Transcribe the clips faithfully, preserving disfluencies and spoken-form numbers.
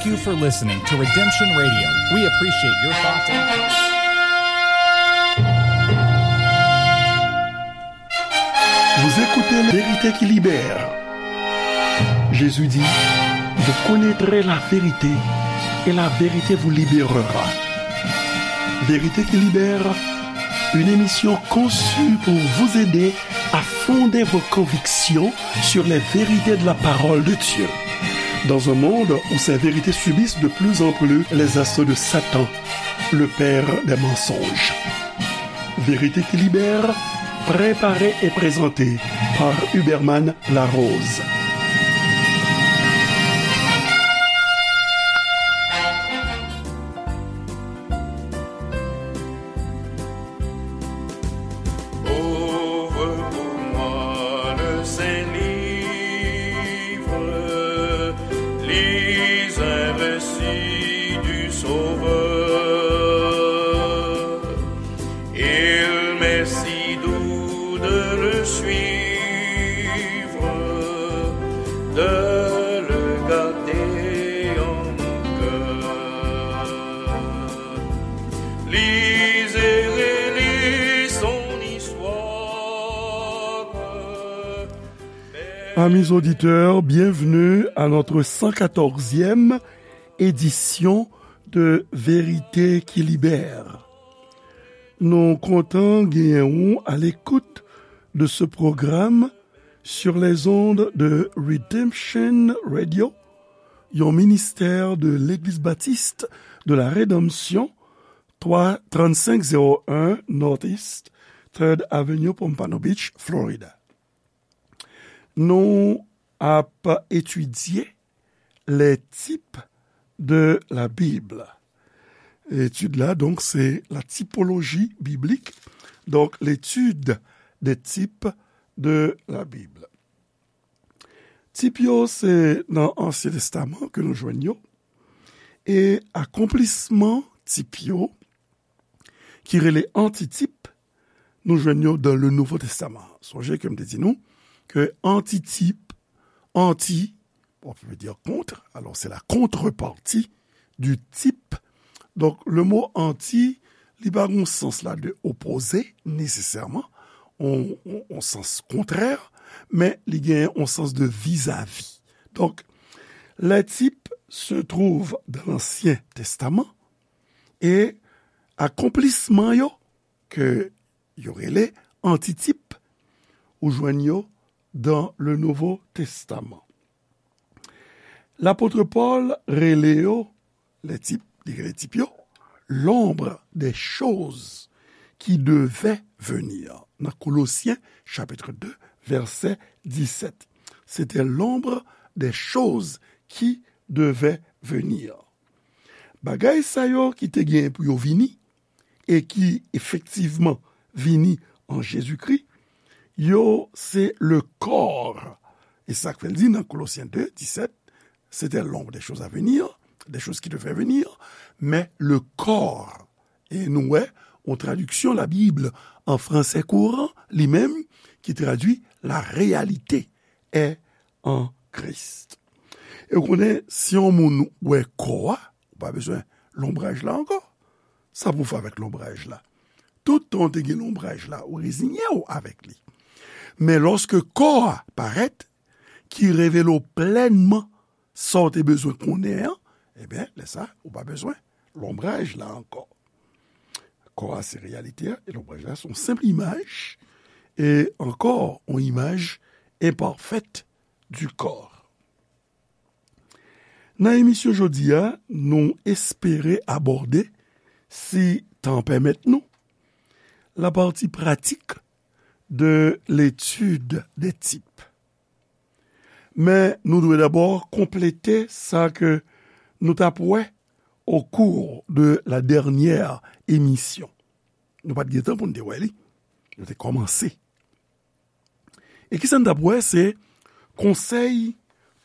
Thank you for listening to Redemption Radio. We appreciate your thoughts and Vous écoutez La Vérité qui Libère. Jésus dit, vous connaîtrez la vérité et la vérité vous libérera. Vérité qui Libère, une émission conçue pour vous aider à fonder vos convictions sur les vérités de la parole de Dieu. Dans un monde où ces vérités subissent de plus en plus les assauts de Satan, le père des mensonges. Vérité qui Libère, préparée et présentée par Huberman Larose. Ouvre pour moi le Saint-Livre, lis un récit du Sauveur. Il m'est si doux de le suivre, de le garder en mon cœur. Lisez et relisez son histoire. Amis auditeurs, bienvenue à notre cent quatorzième édition de Vérité qui Libère. Nou kontan genyen ou à l'écoute de ce programme sur les ondes de Redemption Radio, yon ministè de Legliz Batis de la Redanmsyon, twa, trannsenk zewo en Northeast Third Avenue, Pompano Beach, Florida. Nou ap etidye les types de la Bible. Etid la, donk, se la typologie biblique, donc l'étude des types de la Bible. Tip yo, se nan Ansyen Testaman ke nou jwenn yo, e akonplisman tip yo, ki rele antitip, nou jwenn yo dans le Nouveau Testament. Sonje ke m te di nou ke antitip, anti, bon, veut dire contre, alors c'est la contrepartie du type. Donk, le mot anti, li pa gon sans la de opposé, nesesèman, on, on, on sans kontrè, men li gen on sans de vizavi. Donk, les types se trouvent dans l'Ancien Testament, e akonplisman yo, ke yo rele antitip, ou jwenn yo dans le Nouveau Testament. Lapot Pòl rele yo, les types, li rele tip yo, l'ombre des choses qui devaient venir. Nan Kolosyen, chapitre deux, verset dix-sept. C'était l'ombre des choses qui devaient venir. Bagay sa yo ki te gen pou yo vini, e ki efektivman vini an Jezikri, yo se le corps. E sa k fè l di nan Kolosyen deux, dix-sept, c'était l'ombre des choses à venir, des choses qui devaient venir, mais le corps. E nou wè, yon tradiksyon Labib an fransè kouran, li menm, ki tradui la réalité est en Christ. E w konnen, si yon moun wè kò a, ou pa bezwen lonbraj la ankò. Sa pou w fè avèk lonbraj la? Tout tan w te gen lonbraj la, ou reziye w avèk li. Men lòske kò a parèt, ki revele w plènman sa w te bezwen konnen an, ebyen, lè sa, ou pa bezwen lonbraj la ankò. Kò a se reyalite a, e lonbraj la se yon senp imaj, e ankò, yon imaj enpafèt du corps. Nan emisyon jodi a, nou espere abòde, si tan pèmèt nou, la partie pratique de l'étude des types. Men nou dwe dabò konplete sa ke nou t ap wè au cours de la dernière émission. Nou pa t gen tan pou n te wè li. Nou te kòmanse. E kisa n t ap wè? Se conseil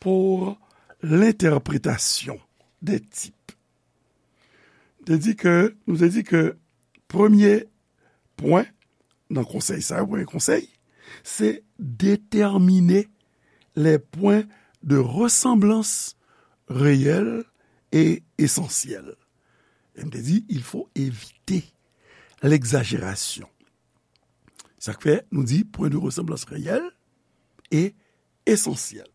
pour l'interprétation des types. Te di ke, nou te di ke premye pwen nan konsèy sa yo, premye konsèy, se déterminer les points de ressemblance réelle e esansyèl. E m te di, il faut éviter l'exagération. Sa k fè nou di, point de ressemblance réelle e esansyèl.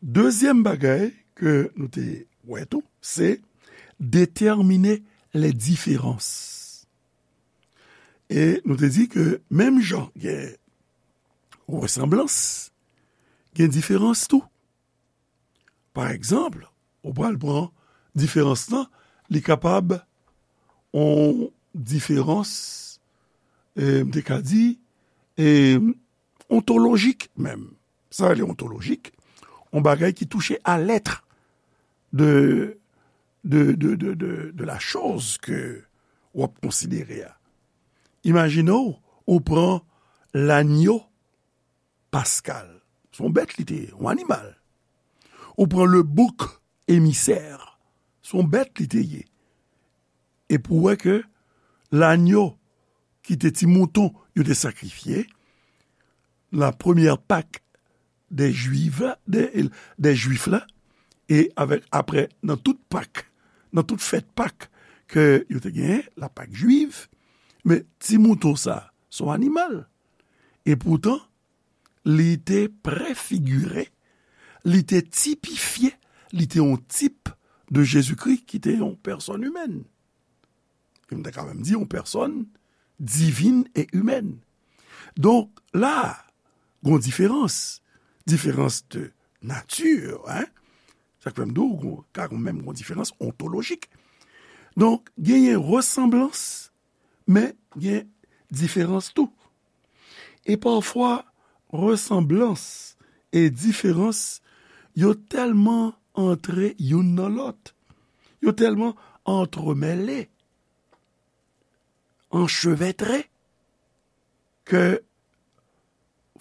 Dezyèm bagay ke nou te wè tou, se déterminer les différences. E nou te di ke menm jan gen resanblans, gen diferans tou. Pa egzanp, ou pral pran diferans lan, li kapab yon diferans, e, m te ka di, e, ontolojik menm. Sa rele ontolojik, yon bagay ki touche à l'être de, de, de, de, de, de la chose ke w ap konsidere a. Imajine w, ou pran lanyo paskal. Se yon bèt li te ye, yon animal. Ou pran le bouc émissaire. Se yon bèt li te ye. Epi w wè ke lanyo ki te ti mouton yo te sakrifye, la premyè Pak dè Jwif la, dè, dè Jwif la, e avèk, aprè, nan tout Pak, nan tout fèt Pak ke yo te genyen, la Pak jwiv, men ti mouton sa, se yon animal. E poutan, li te prefigire, li te tipifye, li te yon tip de Jezikri ki te yon pèsòn imèn. E m ta ka menm di yon pèsòn divin e imèn. Donk, la, gon diferans. Diferans de nati, hein? Sa k fè m di w, gon, ka gon menm gon diferans ontolojik. Donk, genyen resanblans, men gen diferans tou. E pafwa, resanblans e diferans, yo tèlman antre youn nan lòt, yo tèlman antremèle, anchevètre, ke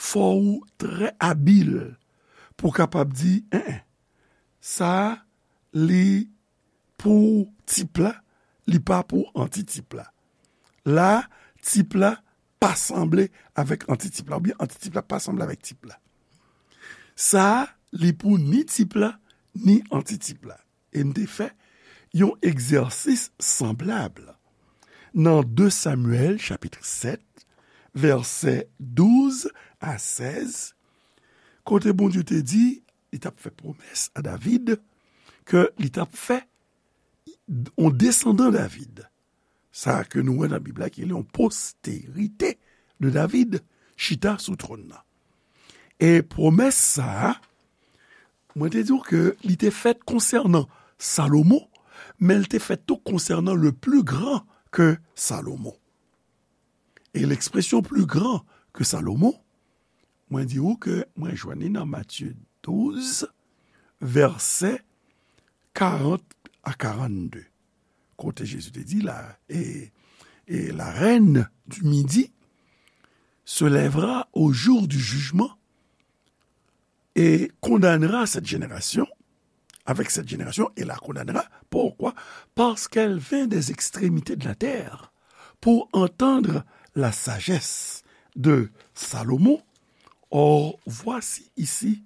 fò ou trè abil pou w kapab di, en, en, sa a, li pou tip la, li pa pou antitip la. La, tip la pa sanble avèk antitip la, oubyen antitip la pa sanble avèk tip la. Sa a, li pou ni tip la, ni antitip la. E m te fè yon egzèsis sanblab nan de Samyèl, chapit sèt, vèsè douz a sèz, kote Bondye te di, li t ap fè pwomès a David, ke li t ap fè yon desandan David. Sa ke nou wè nan Bib la, ki rele yon posterite de David, chita sou twòn nan. E pwomès sa a, mwen te di w ke li te fèt konsènan Salomon, men li te fèt tou konsènan le plus grand que Salomon. E l'expression plus grand que Salomon, mwen di w ke mwen jwenn li nan Matye douz, vèsè karant a karannde. Kote Jezi te di la, et, et la reine du midi se lèvera au jour du jugement et condamnera cette génération, avec cette génération, et la condamnera. Pourquoi? Parce qu'elle vint des extrémités de la terre pour entendre la sagesse de Salomon. Or, voici ici,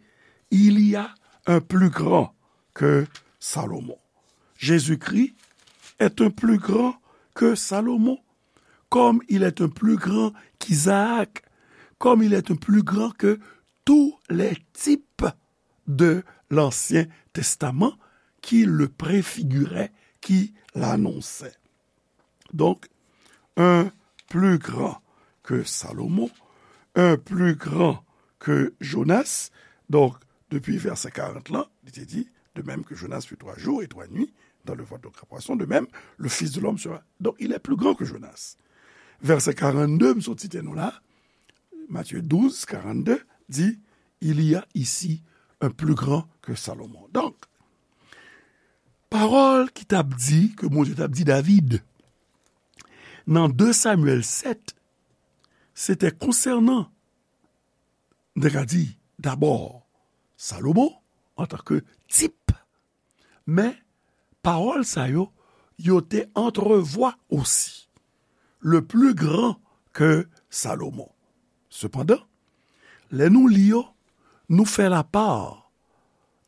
il y a un plus grand que Salomon. Jésus-Christ est un plus grand que Salomon, comme il est un plus grand qu'Isaac, comme il est un plus grand que tous les types de l'Ancien Testament qui le préfiguraient, qui l'annonçaient. Donc, un plus grand que Salomon, un plus grand que Jonas. Donk, depi vèsè karant lan, li te di, de même que Jonas fut trois jours et trois nuits dans le ventre de grand poisson, de même, le Fils de l'homme sera. Donc, il est plus grand que Jonas. Vèsè karannde, m sot site nou la, Matthieu douze, quarante-deux, di, il y a ici un plus grand que Salomon. Donk, pawòl ki t ap di, ke Bondye t ap di David, nan de Samyèl sèt, se te konsènan, m te ka di, dabò, Salomon, antanke tip, men pawòl sa yo, yo te antrevwa osi le plus grand que Salomon. Sepandan, lè nou li yo, nou fè lapar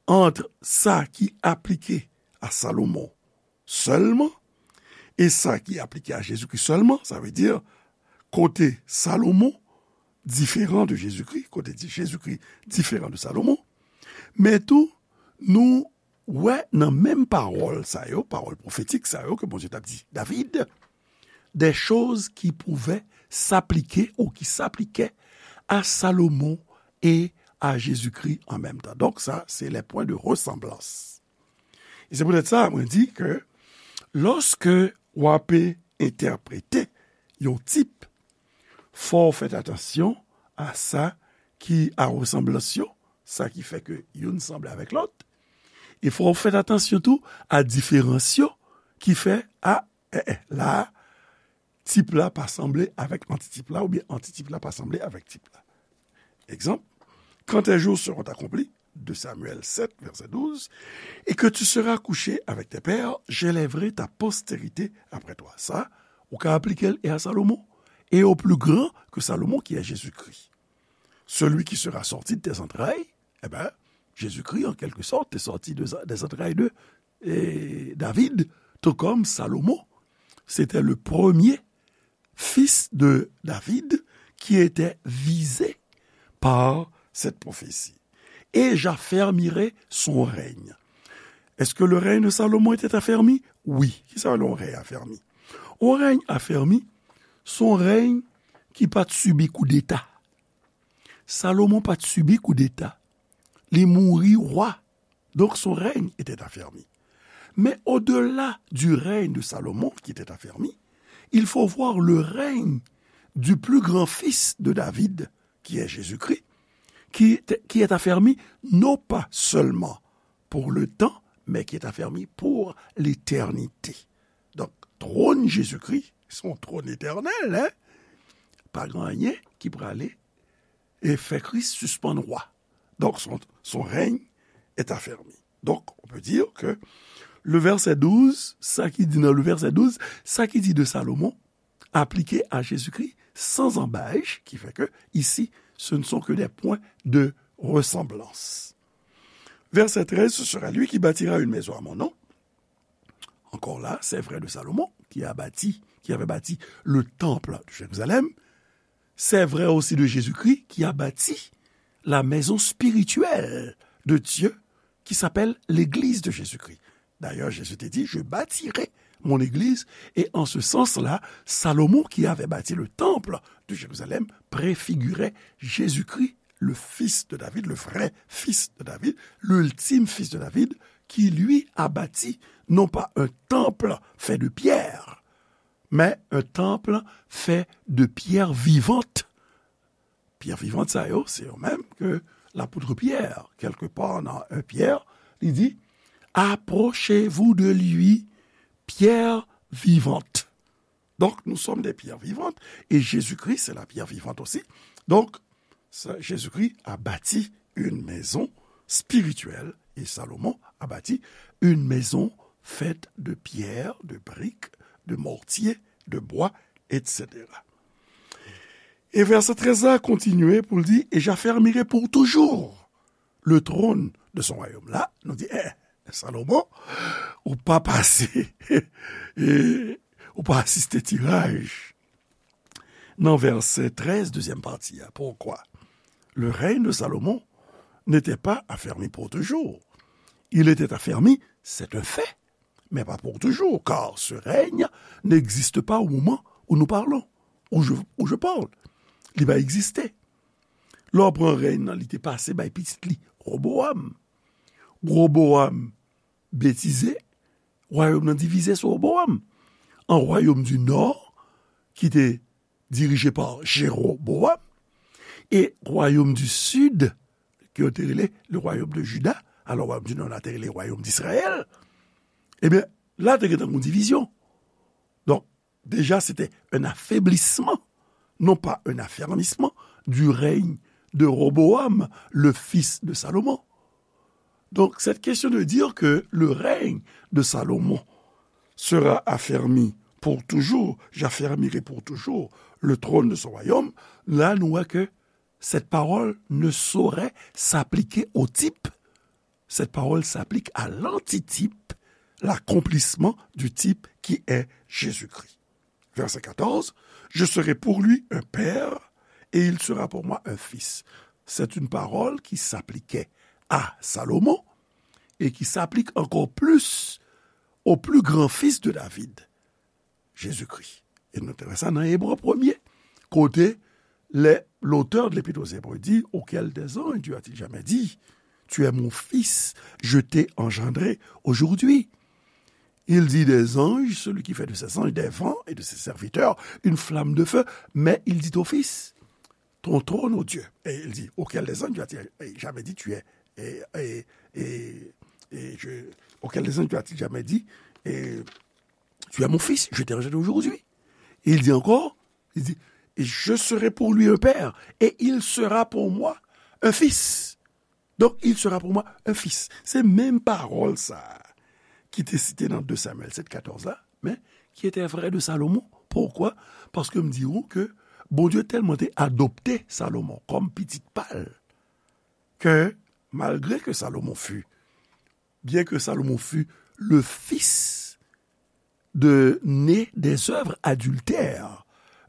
ant sa ki aplike a Salomon sèlman e sa ki aplike a Jezikri sèlman, sa vle di kote Salomon diferan de Jezikri, kote di Jezikri diferan de Salomon, men tou nou wè nan menm pawòl sa yo, pawòl pwofetik sa yo ke Bondye t ap di David, des choses qui pouvaient s'appliquer ou qui s'appliquaient à Salomon et à Jésus-Christ en même temps. Donk sa, se les points de ressemblance. E se poutèt sa, mwen di ke lòske w ape entèprete yon tip, fò w fèt atansyon a sa ki a resanblans yo, sa ki fè ke youn sanble avèk lòt, e fò w fèt atansyon tou a diferans yo ki fè, a, eh, eh, la a, tip la pa sanble avèk antitip la, oubyen antitip la pa sanble avèk tip la. Egzanp, quand tes jours seront accomplis, deux Samuel sept, verset douze, et que tu seras couché avec tes pères, j'élèverai ta postérité après toi. Sa, ou ka aplike l e a Salomon, et au plus grand que Salomon, qui est Jésus-Christ. Celui qui sera sorti de tes entrailles, eh ben, Jésus-Christ, en quelque sorte, est sorti de, des entrailles de eh, David, tout comme Salomon, c'était le premier fils de David qui était visé par cette prophétie. Et j'affermirai son règne. Est-ce que le règne de Salomon était affermi? Wi. Kisa yon rèy afèmi? Yon rèy afèmi, se yon rèy ki pa t sibi koudeta. Salomon pa t sibi koudeta. Li mouri wa. Donc son règne était affermi. Mais au-delà du règne de Salomon, qui était affermi, il faut voir le règne du plus grand fils de David, qui est Jésus-Christ, qui est, qui est affermi non pas seulement pour le temps, mais qui est affermi pour l'éternité. Donk, twòn Jezikri, se yon twòn etènèl, en? Pa gen anyen ki prale e fè Kris sispann wa. Donk, son, son règne est affermi. Donc, on peut dire que le verset douze, sa ki di nan le verset douze, sa ki di de Salomon, appliqué à Jésus-Christ sans embâche, qui fait que, ici, ce ne sont que des points de ressemblance. Verset treize, ce sera lui qui bâtira une maison à mon nom. Encore là, c'est vrai de Salomon, qui a bâti, qui avait bâti le temple de Jérusalem. C'est vrai aussi de Jésus-Christ, qui a bâti la maison spirituelle de Dieu, qui s'appelle l'église de Jésus-Christ. D'ailleurs, Jésus te dit, je bâtirai mon église. Et en ce sens-là, Salomon, qui avait bâti le temple de Jérusalem, préfigurait Jésus-Christ, le fils de David, le vrai fils de David, l'ultime fils de David, qui lui a bâti non pas un temple fait de pierre, mais un temple fait de pierres vivantes. Pyè vivan sa yo, se yo menm ke lapot Pyè, kèlkepar nan en Pyè, li di, approchez-vous de lui, pierre vivante. Donc, nous sommes des pierres vivantes, et Jésus-Christ, c'est la pierre vivante aussi. Donc, ça, Jésus-Christ a bâti une maison spirituelle, et Salomon a bâti une maison faite de pierre, de briques, de mortier, de bois, et cetera. E vèsè trèz la kontinye pou l di, et j'affermirai pour toujours le trône de son royaume. La, nou di, eh, Salomon, ou pa pase, e, ou pa asiste tiraj. Nan vèsè trèz, dezyèm pati a, pourquoi? Le règne de Salomon n'était pas affermi pour toujours. Il était affermi, c'est un fait, mais pas pour toujours, car ce règne n'existe pas au moment où nous parlons, où je, où je parle. Li pa egziste. Lè w pran rèy nan, li te pase bay pitit li, Roboam. Roboam betize, wayòm nan divize sou Roboam. An wayòm di nò, ki te dirije pa Jeroboam, e wayòm di sid, ke yo te rele le royaume de Juda, alò wayòm di nò la te rele wayòm d'Israël, ebyen, la te gentan gon divizyon. Donk, déjà, c'était un affaiblissement, non pas un affermissement du règne de Roboam, le fils de Salomon. Donc, cette question de dire que le règne de Salomon sera affermi pour toujours, j'affermirai pour toujours le trône de son royaume, là, nous voyons que cette parole ne saurait s'appliquer au type Cette parole s'applique à l'antitype, l'accomplissement du type qui est Jésus-Christ. Verset quatorze, je serai pour lui un père et il sera pour moi un fils. C'est une parole qui s'appliquait à Salomon et qui s'applique encore plus au plus grand fils de David, Jésus-Christ. E nou te wè sa nan Ebre premye, kote le, l'auteur de l'Épître aux Hébreux dit, auquel des anges Dieu a-t-il jamais dit, tu es mon fils, je t'ai engendré aujourd'hui. Il dit des anges, celui qui fait de ses anges des vents et de ses serviteurs une flamme de feu, mais il dit au fils, ton trône, ô Dieu. Et il dit, auquel des anges Dieu a-t-il jamais dit, tu es, et, et, et, et je, auquel des anges Dieu a-t-il jamais dit, et, tu es mon fils, je t'ai engendré aujourd'hui. Et il dit encore, il dit, et je serai pour lui un père, et il sera pour moi un fils. Donc, il sera pour moi un fils. Se menm pawòl sa a ki te site nan de Samyèl sèt katòz la, men ki te vrè de Salomon. Poukwa? Paske m di ou ke Bondye tèlman te adopte Salomon kòm pitit pa l, ke malgre ke Salomon fut, bien que Salomon fut le fils de, né des œuvres adultères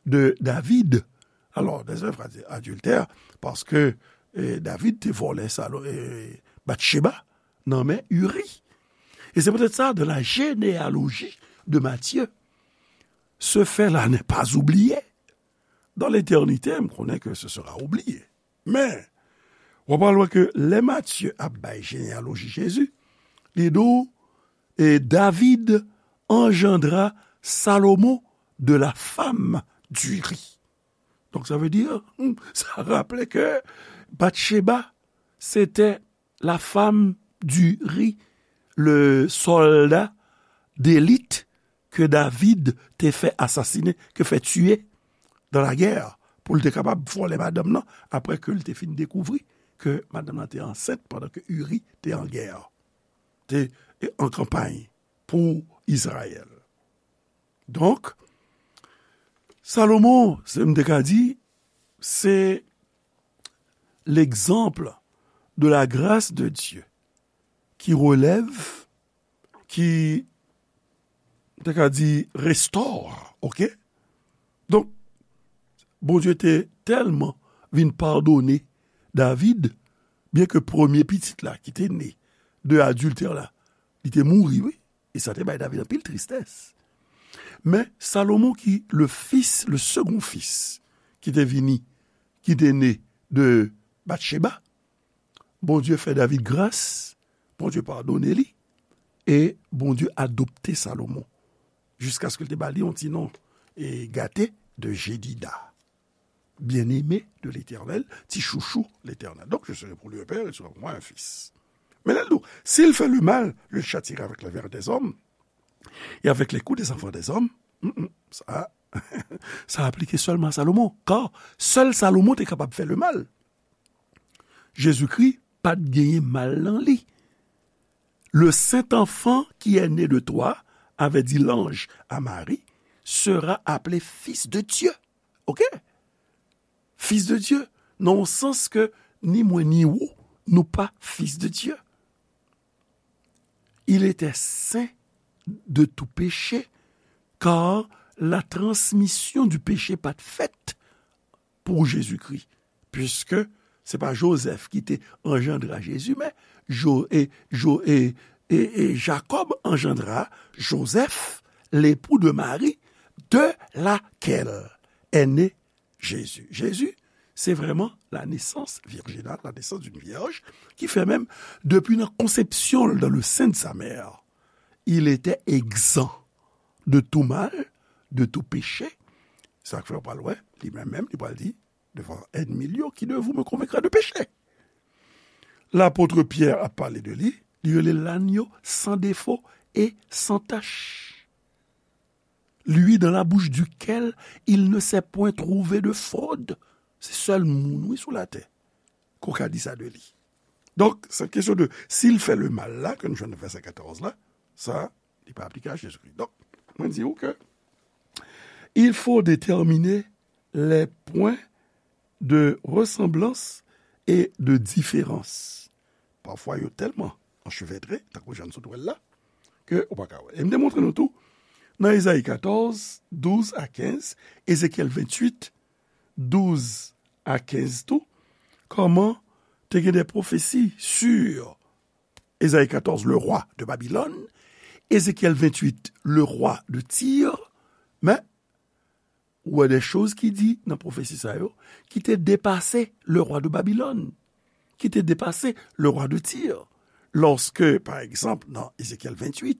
de David. Alors, des œuvres adi-, adultères, paske, eh, David te vòlè Salo-, eh, Batcheba nan men Uri. Et c'est peut-être ça, dans la généalogie de Matthieu. Ce fait-là n'est pas oublié. Dans l'éternité, m konnen ke ce sera oublié. Men, w ap al wè ke lè Matye ap bay jeneyaloji Jezi, li di w, et David engendra Salomon de la femme d'Uri. Donc, ça veut dire, sa raple ke Batcheba, c'était la femme d'Uri, le soldat d'élite ke David te fè asasinen, ke fè tiye dans la guerre, pou l te kapab vòlè madanm nan, apre ke l te fin dekouvri ke madanm nan te ansent pandan ke Uri te an gè, te, e, an kanpay pou Izrayèl. Donk, Salomon, se m te ka di, se l'exemple de la grâce de Dieu qui relève, qui, te ka di, restore, oke? Donk, Bondye te tèlman vin padone David, byen ke premye pitit la ki te ne de adiltè la, li te mouri, wi. E sa te bay David anpil tristès. Men Salomon ki le fils, le second fils, ki te vini, ki te ne de Batcheba, Bondye fè David gras, Bondye padone li, e Bondye adopte Salomon, jiskaske l te ba li yon ti non, e, gate, de Jedida. Bien-aimé de l'Éternel, ti chouchou Letènèl. Donc, je serai pour lui un père, il sera pour moi un fils. Men lè l di w, s'il fait le mal, je le châtierai avec la verve des hommes et avec les coups des enfants des hommes, mm, mm, sa, sa aplike sèlman a Salomon, kar sèl Salomon te kapab fè lemal. Jezikri pa t genyen mal nan li. Le saint enfant qui est né de toi, avait dit l'ange à Marie, sera appelé fils de Dieu. Oke? Fils de Dieu. Nan yon sans ke ni mwen ni ou, nou pa fils de Dieu. Il était saint de tout péché, car la transmission du péché pa t fèt pou Jezikri, piske se pa Jozèf ki te anjandra Jezi, men Jo-, e, Jo-, e, e, e Jakòb anjandra Jozèf, l'époux de Marie, de laquelle est né Jésus. Jésus, c'est vraiment la naissance virginale, la naissance d'une vierge, ki fè menm, depi nan konsepsyon l dans le sein de sa mère, il était exempt de tout mal, de tout péché. Sa k fè w pral wè, li menm menm, li pral di, devant ennemi yo, qui de vous me convaincra de péché? Lapot Pyè ap pale de li, li rele l l'agneau sans défaut et sans tache. Lui dans la bouche duquel il ne s'est point trouvé de fraude. Se sèl moun, wi, sou latè, ke w ka di sa de li. Donk, cette question de s'il fait le mal la, ke nou jwenn nan vèsè katòz la, sa, li pa aplike a Jezikri. Donk, mwen di w ke il faut déterminer les points de ressemblance et de différence. Pafwa, yo tèlman anchevetre, tankou jan n sot wè l la, ke ou pa ka wè. E m te montre nou tou, nan Ezayi katòz, douz a kenz, Ezekyèl venntuit, douz a kenz tou, kòman te gen de pwofesi sur Ezayi katòz, le roi de Babylone, Ezekyèl venntuit, le roi de Tyr, men, ou wè de choz ki di nan pwofesi sa yo, ki te depase le roi de Babylone, ki te depase le roi de Tyr. Lorsque, par exemple, dans Ézéchiel vingt-huit,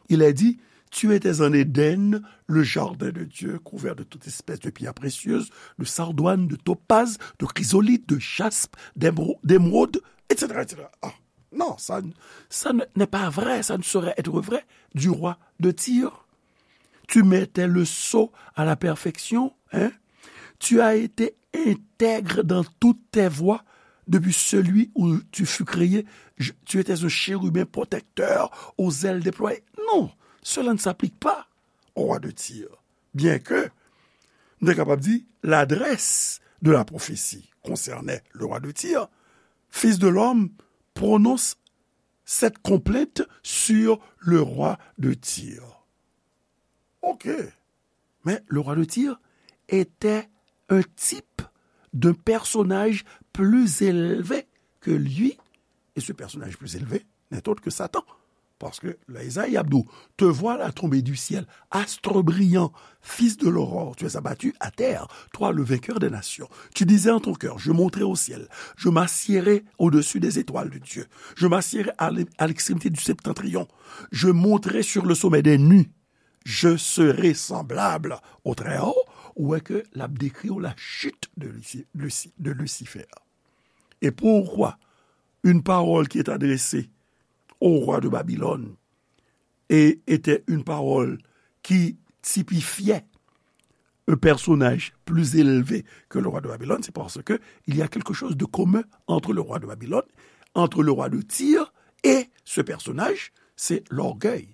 il est dit, tu étais en Éden, le jardin de Dieu, couvert de toute espèce de pierres précieuses, de sardoine, de topaze, de chrysolithe, de jaspe, d'émero-, d'émeraude, et cetera, et cetera. Ah, non, ça, ça ne- n'est pas vrai, ça ne saurait être vrai du roi de Tyr. Tu mettais le sceau à la perfection, hein? Tu as été intègre dans toutes tes voies depuis celui où tu fus créé. Je- tu étais un chérubin protecteur aux ailes déployées. Non, cela ne s'applique pas au roi de Tyr. Bien que, nou te kapab di, l'adresse de la prophétie concernait le roi de Tyr, fils de l'homme prononce cette complainte sur le roi de Tyr. Ok. Mais le roi de Tyr était un type d'un personnage plus élevé que lui. Et ce personnage plus élevé n'est autre que Satan. Parce que là, Isaïe Abdou, te voilà tombé du ciel, astre brillant, fils de l'aurore, tu es abattu à terre, toi le vainqueur des nations. Tu disais en ton cœur, je monterai au ciel, je m'assiérai au-dessus des étoiles de Dieu, je m'assiérai à l'e- à l'extrémité du septentrion, je monterai sur le sommet des nues, je serai semblable au Très-Haut, ou wè ke l ap dekri w la chute de Luci- Luci- de Lucifer. Et pourquoi une parole qui est adressée au roi de Babylone et était une parole qui typifiait un personnage plus élevé que le roi de Babylone, c'est parce que il y a quelque chose de commun entre le roi de Babylone, entre le roi de Tyr et ce personnage, c'est l'orgueil.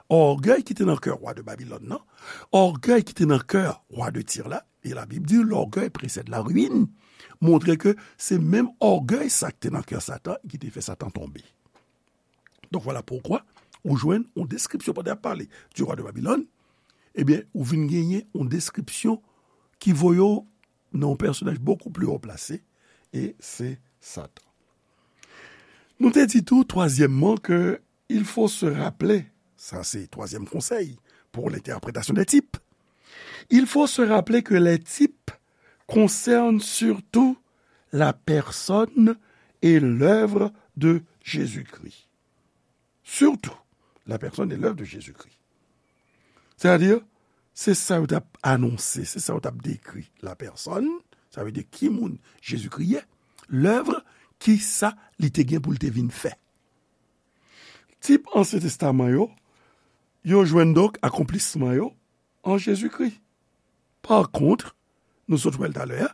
Ògèy ki te nan kè wa de Babilòn nan, ògèy ki te nan kè wa de Tir la, e Labib di, l'orgueil précède la ruine, montre ke se menm ògèy sa ki te nan kè Satan ki te fè Satan tonbe. Donk, vwala poukwa ou jwenn yon deskripsyon pandan y ap pale du roi de Babylone, ebyen, ou vin genyen yon deskripsyon ki voye w nan yon pèsonaj bokou pli wo plase, e se Satan. Nou te di tou, twazyèmman, ke il faut se rappeler, sa se twazyèm konsèy pour l'interprétation des types, il faut se rappeler que les types concernent surtout la personne et l'œuvre de Jésus-Christ. Surtout, la personne et l'œuvre de Jésus-Christ. Sètadi, se sa yo t ap anonse, se sa yo t ap dekri. La personne, sa vle di ki moun Jezikri ye, l'œuvre, ki sa li te gen pou l te vin fè. Tip Ansyen Testaman yo, yo jwenn donk akonplisman yo an Jezikri. Par contre, nou sot wè l talè a,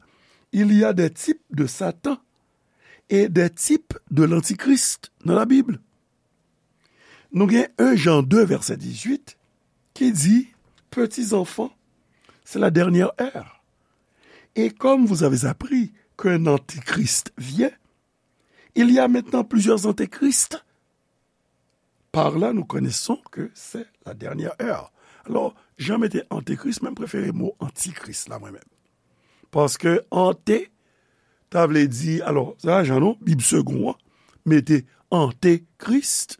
il y a des types de Satan et des types de l'Antichrist dans la Bible. Nou gen un Jean deux, verset dix-huit, ki di, petits enfants, c'est la dernière heure. Et comme vous avez appris qu'un antichrist vient, il y a maintenant plusieurs antéchrists. Par là, nous connaissons que c'est la dernière heure. Alò, jan mete antekris, men m prefere mo antikris la, mwen menm. Paske ante, ta vle di, alò, sa jan non, Bib Segond an, mete antekris,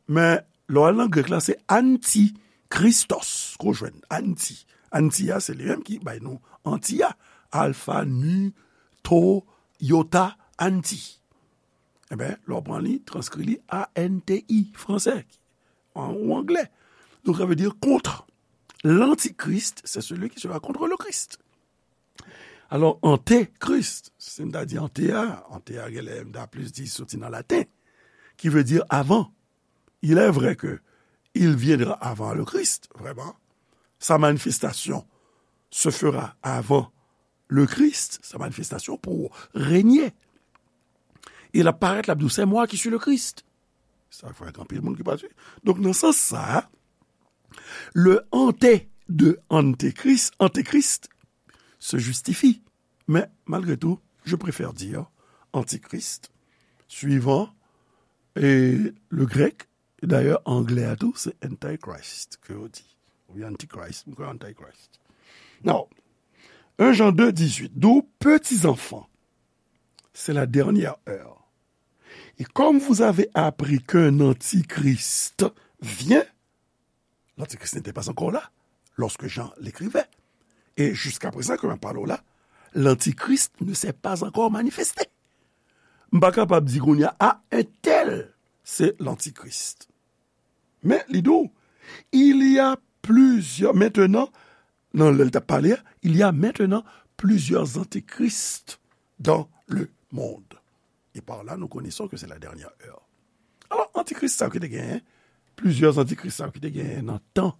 men lè w al nan grèk la, se anti, Christos, ke w jwenn, anti. Anti a, se li menm ki bay nou anti a. Alfa, nu, to, yota, anti. Eben, lè w pran li, transkri li A N T I, fransè, an, ou anglè. Donk, sa vle di kont. L'antichrist, c'est celui qui sera contre le Christ. Alò, antekris, si m ta di ante a, ante a genlè m ta plis di soti nan laten, ki vle di avan. Il est vrai que il viendra avant le Christ, vraiment. Sa manifestasyon se fera avant le Christ, sa manifestasyon pou renye. E l ap parèt, l ap di w, c'est moi qui suis le Christ. Sa fè anpil moun ki pa swiv. Donk, nan sans sa, le ante de antekris, antekris, se justifie. Mais, malgré tout, je préfère dire antichrist, suivant E le grèk, dayè, anglè a tou, se antichrist ke yo di. Oubyen antichrist, m kwè antichrist. Now, un Jean deux dix-huit, d'où, petits enfants, c'est la dernière heure. Et comme vous avez appris qu'un antichrist vient, l'antichrist n'était pas encore là lorsque Jean l'écrivait. Et jusqu'à présent, ke m ap pale w la, l'antichrist ne s'est pas encore manifesté. M pa kapab di kounye a, a, entèl, se l'antichrist. Men, li di w, il y a plusieurs, maintenant, nan lè l t ap pale a, il y a maintenant plusieurs antichrists dans le monde. Et par là, nous connaissons que c'est la dernière heure. Alò, antichrists sa yo ki te genyen, plizyè antichrists sa yo ki te genyen nan tan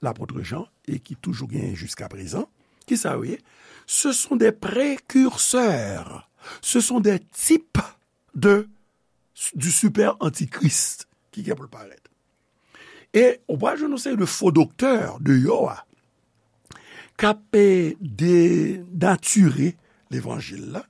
lapot Jan e ki toujou genyen jiska prezan, ki sa yo ye? Ce sont des précurseurs, ce sont des types de, du super antichrist ki gen pou l parèt. E ou pral jwenn yon seri de fo doktè deyò a k ap, eh, denatire levanjil la,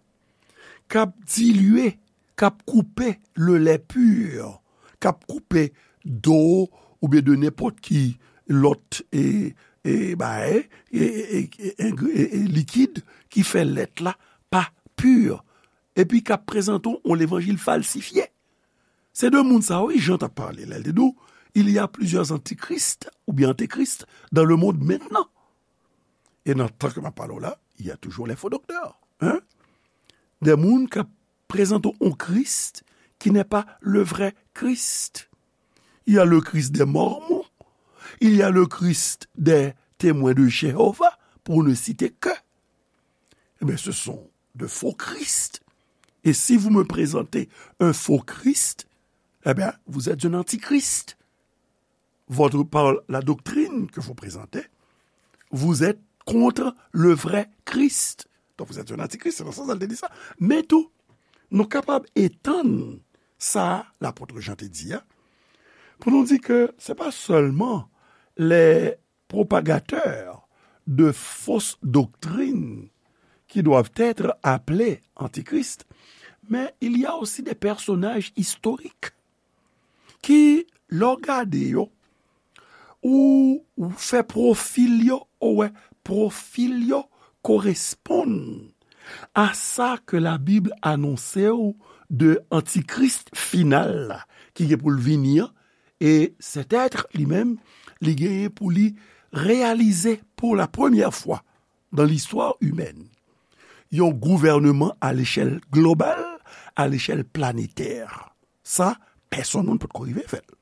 k ap dilye, k ap koupe le lait pur, k ap koupe do oubyen de nenpòt ki lòt, e, e, bagay, e, e, e, e, e, e, likid ki fè lèt la pa pi, epi k ap prezante w yon levanjil falsifye. Se de moun sa yo, wi, Jan t ap pale lè l te di w, il y a plusieurs antichrists oubyen antéchrist dans le monde maintenant. E nan tan ke m ap pale w la, il y a toujours les faux docteurs, hein? De moun k ap prezante w yon Kris ki n'est pas le vrai Christ. Il y a le Christ des Mormons, il y a le Christ des Témoins de Jéhovah, pour ne citer que. Eh bien, ce sont de faux Christ. Et si vous me présentez un faux Christ, eh bien, vous êtes un antichrist. Votre, par la doctrine que vous présentez, vous êtes contre le vrai Christ. Donc, vous êtes un antichrist, c'est dans ce sens-là, elle te dit ça. Men tou, nou kapab etann sa lapot Jan te di a, pou nou di ke se pa sèlman les propagateurs de fausses doctrines qui doivent être appelés antichrists, mais il y a aussi des personnages historiques ki, lè w gade yo, ou, ou fè pwofil yo, ou wè pwofil yo koresponn a sa ke Labib anonse w de antichrists final la, ki gen pou l vini an, e cet être li menm, li genyen pou li reyalize pour la première fois dans l'histoire humaine yon gouvènman à l'échelle globale, à l'échelle planétaire. Sa, pèsonn moun potko rive fè l.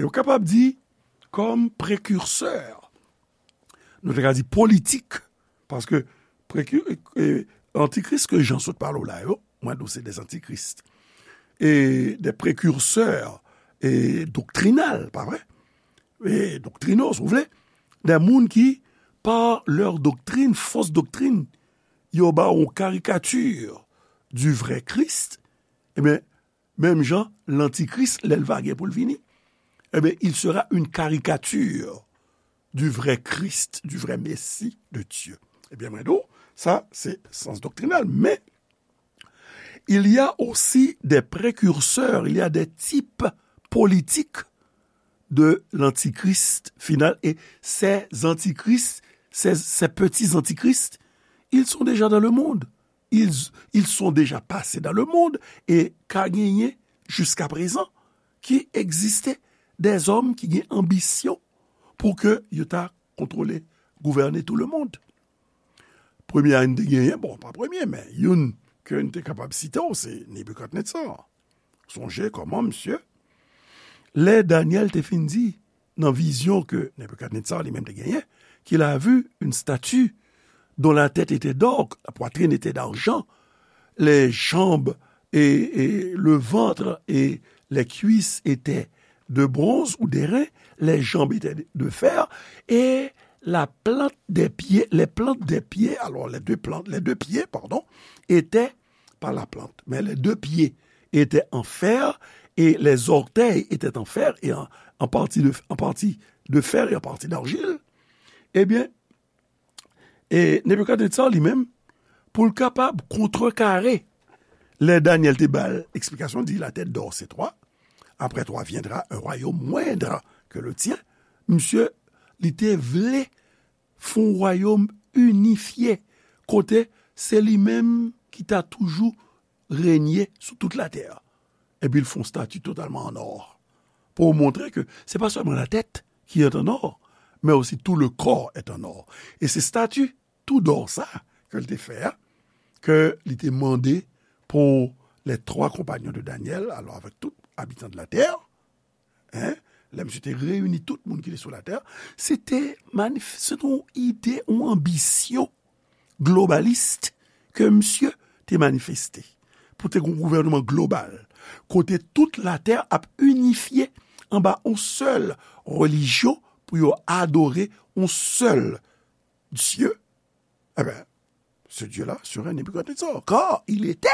E w kapab di, kòm prekirsè, nou te ka di politik, paske preki-, e, antikris ke Jan sot pale w la yo, mwen di w se des antichrists, e des précurseurs, e doktrinal, pa vre? E doktrinal, si w vle, de moun ki, par leur doctrine, fausse doctrine, yo ba w yon karikati du vrai Christ, ebyen, menm jan, lantikris, lè l va gen pou l vini, ebyen, il sera une caricature du vrai Christ, du vrai Messie de Dieu. Ebyen, mwen di w, sa, se sans doktrinal, men il y a aussi des précurseurs, il y a des types politiques de l'antichrist final. Et ces antichrists, ces, ces petits antichrists, ils sont déjà dans le monde. Ils, ils sont déjà passés dans le monde. E ka genyen, jiska prezan, ki egziste dèzòm ki gen anbisyon pou ke yo ta kontwole, gouvène tout le monde. Premye a n te genyen, bon, pa premye, men youn ke n te kapab site w, se Nebikadnetsar. Sonje kòman, misye, lè Danyèl te fin di, nan vizyon ke Nebikadnetsar li menm te genyen, qu'il a vu une statue dont la tête était d'or, la poitrine était d'argent, les jambes et, et le ventre et les cuisses étaient de bronze ou d'airain, les jambes étaient de fer, et la plante des pieds, les plantes des pieds, alors les deux plantes, les deux pieds, pardon, étaient, pas la plante, mais les deux pieds étaient en fer, et les orteils étaient en fer, et en, en partie de, en partie de fer et en partie d'argile. Ebyen, e Nebikadnetsar li menm, pou l kapab kontrekare Lè Daniel te ba l eksplikasyon, di, la tête d'or, c'est toi. Après toi viendra un royaume moindre que le tien. Misye, li te vle fè yon wayòm inifye, kote se li menm ki ta toujou renye sou tout latè. Epi l fè yon stati totalman an or. Pou montre ke se pa sèlman la tèt ki est en or, mais aussi tout le corps est en or. E se stati tou dò sa ke l te fè a, ke li te mande pou les trois compagnons de Daniel, alò avèk tout abitan de la terre, hein, lè misye te reyini tout moun ki te sou latè, se te manif-, se te yon ide, yon anbisyon globalis ke misye te manifeste. Pou te gen yon gouvènman global, kote tout latè ap inifye anba yon sèl relijyon, pou yo adore yon sèl Dye, eh ben, ce Dieu-là serait Nebuchadnezzar, car il était,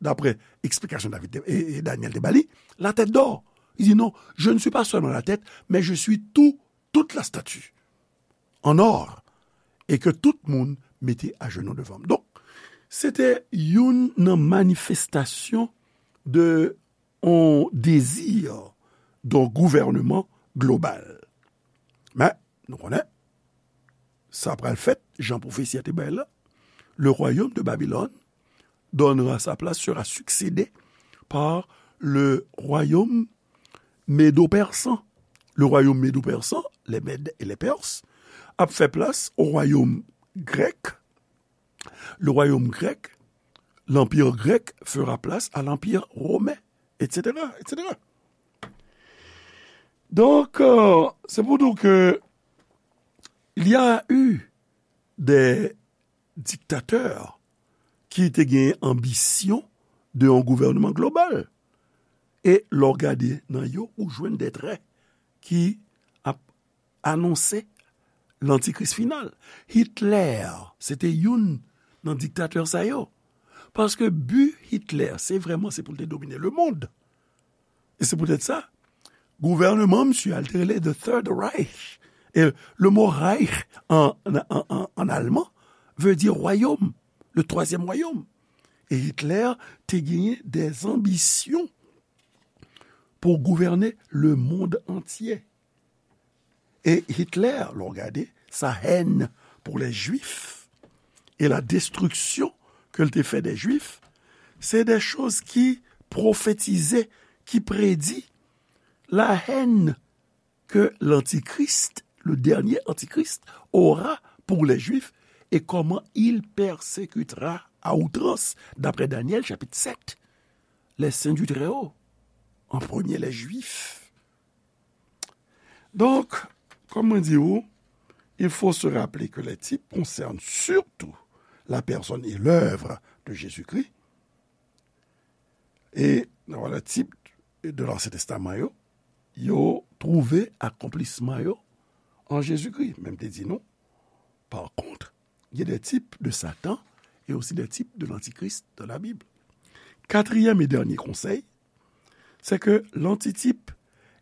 d'après explication David te, et, et Daniel te ba li, la tête d'or. Il dit non, je ne suis pas seulement la tête, mais je suis tout, toute la statue en or, et que tout moun mete ajenou devan m. Donk, se te youn nan manifestasyon de yon dezi d'un gouvernement global. Men, nou konnen, sa pral fèt, jan pwofesi a te bay la, le royaume de Babylone donnera sa place, sera succédé par le royaume médo-persan. Le royaume médo-persan, les Mèdes et les Perses, ap fè plas au royaume grec. Le royaume grec, l'empire grec fera place à l'empire romain, et cetera, et cetera. Donc, euh, c'est pour dire que il y a eu des dictateurs ki te gen anbisyon de yon gouvènman global. E lè w gade nan yo, ou jwenn de trè ki ap anonse lantikris final. Hitler, se te youn nan diktatè sa yo. Paske bi Hitler, se vrèman se pou l te domine lemonn. E se poutèt sa, gouvènman misye a, l te rele The Third Reich. E le mo Reich an, an, an, an alman vle di wayòm, le troisième royaume. E Hitler te genyen des ambitions pour gouverner le monde entier. E Hitler, lè w gade, sa haine pour les Juifs et la destruction ke l te fè des Juifs, se de choz ki pwofetize, ki predi la haine que l'Antichrist, le dernier Antichrist, aura pour les Juifs et comment il persécutera à outrance, d'après Daniel chapitre sept, les saints du Très-Haut, en premier les Juifs. Donc, comme on dit, il faut se rappeler que les types concernent surtout la personne et l'œuvre de Jésus-Christ. E nan valè tip de l'Ancien Testament yo, yo twouve akonplisman yo an Jezikri. Men m te di nou, par contre, il y a des types de Satan et aussi des types de l'Antichrist dans la Bible. Quatrième et dernier conseil, c'est que l'antitype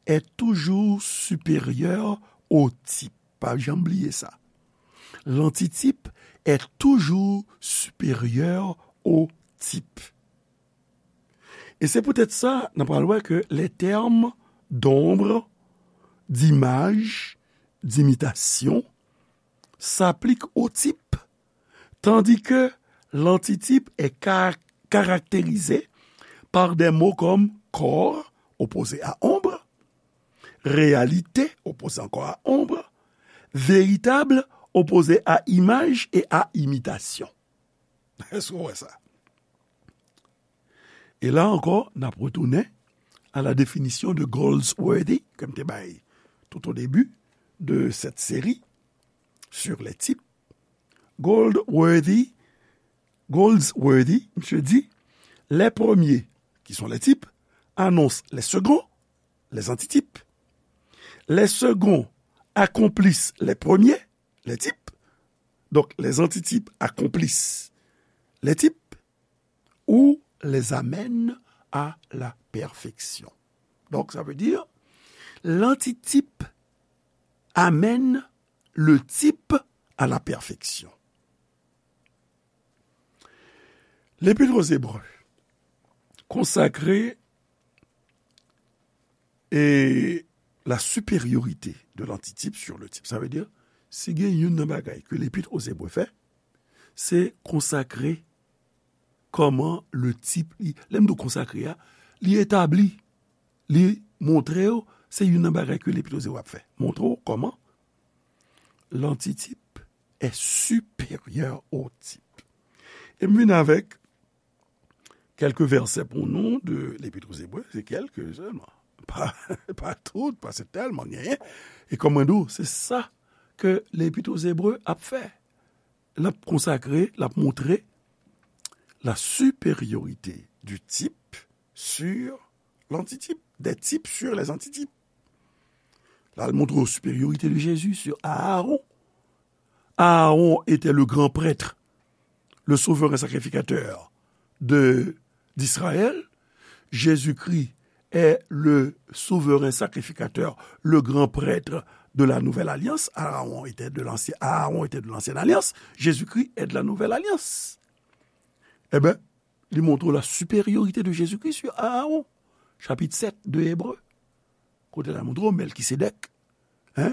est toujours supérieur au type. Pa janm bliye sa. L'antitype est toujours supérieur au type. E se poutèt sa, n ap pral wè ke les termes d'ombre, d'image, d'imitation s'appliquent au type, tandis que l'antitype est ca-, caractérisé par des mots comme corps, opposé à ombre, réalité, opposé encore à ombre, véritable, opposé à image et à imitation. Èske w wè sa? E la ankò, n ap retounen à la définition de Goldsworthy, ke m te bay tout au début de cette série sur les types. Goldsworthy, Goldsworthy, misye di, les premiers, qui sont les types, annoncent les seconds, les antitypes. Les seconds accomplissent les premiers, les types. Donc, les antitypes accomplissent les types ou les amènent à la perfection. Donc, ça veut dire, l'antitype amène le type à la perfection. L'Épître aux Hébreux, consacrer et la supériorité de l'antitype sur le type. Sa vle di, si gen youn nan bagay ke Lepit o Zebre fè, se konsakre kòman le type, li, lè m di w konsakre a, li etabli, li montre w, se youn nan bagay ke Lepit o Zebre ap fè. Montre w kòman l'antitype est supérieur au type. E m vin avèk kèlke vèsè pou nou de Lepit o Zebre, se kèlke sèlman. Pa, pa tout, paske tèlman genyen. E kòm mwen di w, se sa ke Lepit o Zebre ap fè. L ap konsakre, l ap montre la supériorité du type sur l'antitype, des types sur les antitypes. La, l montre w supériorité de Jésus sur Aaron. Aaron était le grand prêtre, le souverain sacrificateur de, d'Israël. Jésus-Christ est le souverain sacrificateur, le grand prêtre de la nouvelle alliance. Aaron était de l'ancien, Aaron était de l'ancienne alliance. Jésus-Christ est de la nouvelle alliance. Eh ben, li montre la supériorité de Jésus-Christ sur Aaron. Chapit sèt de Ebre. Kote la montre w Mèlkisedèk, hein,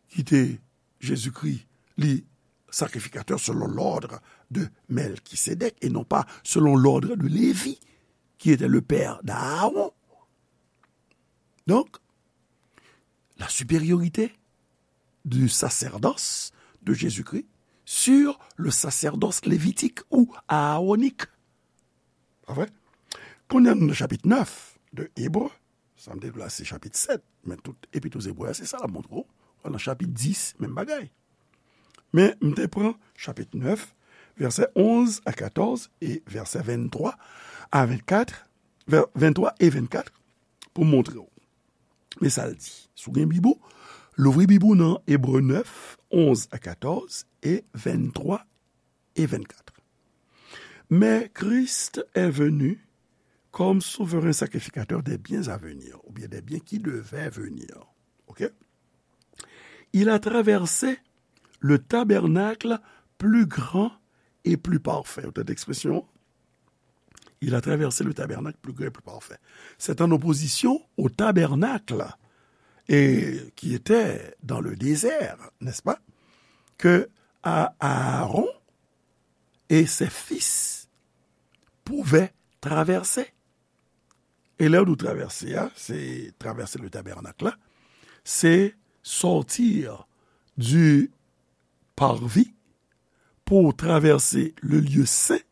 ki te Jezikri, li sakrifikatè selon l'ordre de Melchisédek et non pas selon l'ordre de Lévi, qui était le père d'Aaron. Donc, la supériorité du sacerdoce de Jésus-Christ sur le sacerdoce lévitique ou aaronik. Pa vre? Kounye a nou nan chapit nèf de Ebre, sa m te di w la se chapit sèt, men tout Epit o Ebre a se sa l ap montre w. Nan chapit dis, menm bagay. Men m te pran chapit nèf, vèsè onz a katòz e vèsè venntwa a vennkat, vè-, venntwa e vennkat pou m montre w. Men sa l di. Si w gen Bib ou, louvri Bib ou nan Ebre nèf, onz a katòz e venntwa e vennkat. Mais Christ est venu comme souverain sacrificateur des biens à venir, ou bien des biens qui devaient venir. OK? Il a traversé le tabernacle plus grand et plus parfait. Ou tande ekspresyon? Il a traversé le tabernacle plus grand et plus parfait. C'est en opposition au tabernacle et qui était dans le désert, n'est-ce pas? Que A-, Aaron et ses fils pouvaient traverser. E lè yo di w travèse a, se traverser le tabernacle la, se sortir du parvis pour traverser le lieu saint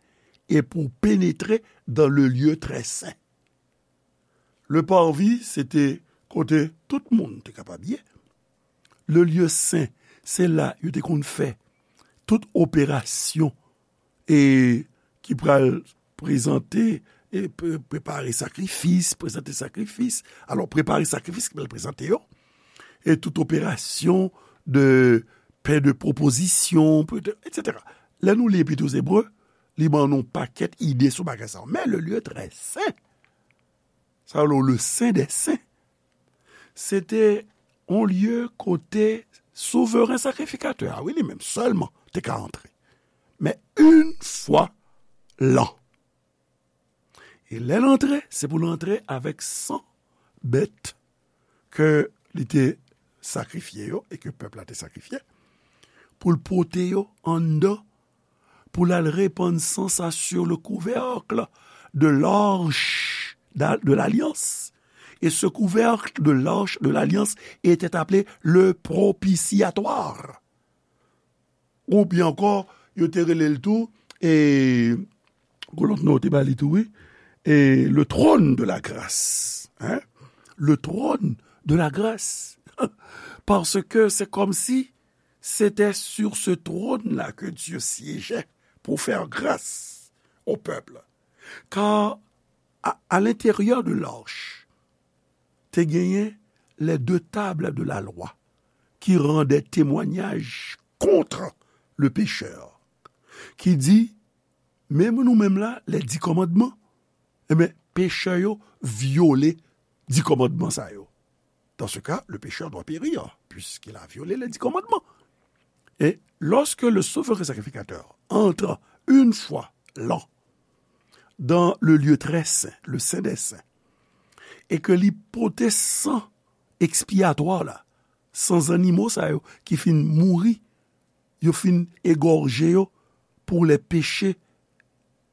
et pour pénétrer dans le lieu très saint. Le parvis, se te kote tout moun te kapab ye. Le lieu saint, se la yo te konn fè tout operasyon e ki pral prezante, e pre-, prepare sakrifis, prezante sakrifis. Alò, prepare sakrifis ki pral prezante yo, e tout operasyon de pen de pwopozisyon, pe-, etsetera. Lè nou li Epit o Ebre, li ban nou pakèt ide sou bagay sa yo. Men le lieu très saint, sa yo le saint des saints, se te yon lye kote souveren sakrifikatè a, wi, li menm sèlman te ka antre. Men yon fwa lan. E lè l antre, se pou l antre avèk san bèt ke li te sakrifye yo e ke pèp la te sakrifye, pou l pote yo anndan, pou l al repann san sa sur le couvercle de l'arche d'a-, de l'alliance. Et ce couvercle de l'arche de l'alliance était appelé le propitiatoire. Ou byen ankò, yo te rele l tou, e, gon lòt non yo te ba li tou, wi, e, le trône de la grâce, hein? Le trône de la grâce. Parce que c'est comme si c'était sur ce trône-là que Dieu siégeait pour faire grâce au peuple. Car à, à l'intérieur de l'arche, te genyen les deux tables de la loi qui rendaient témoignage contre le pécheur, ki di, menm nou menm la, les dix commandements, enben, pechè yo vyole dis kòmandman sa yo. Dans ce cas, le pécheur doit périr, puisqu'il a violé les dix commandements. Et lorsque le souverain sacrificateur entre une fois l'an dans le lieu très saint, le Saint des Saints, e ke li pote san ekspiyatwa la, san zannimo sa yo ki fin mouri, yo fin egòje yo pour les péchés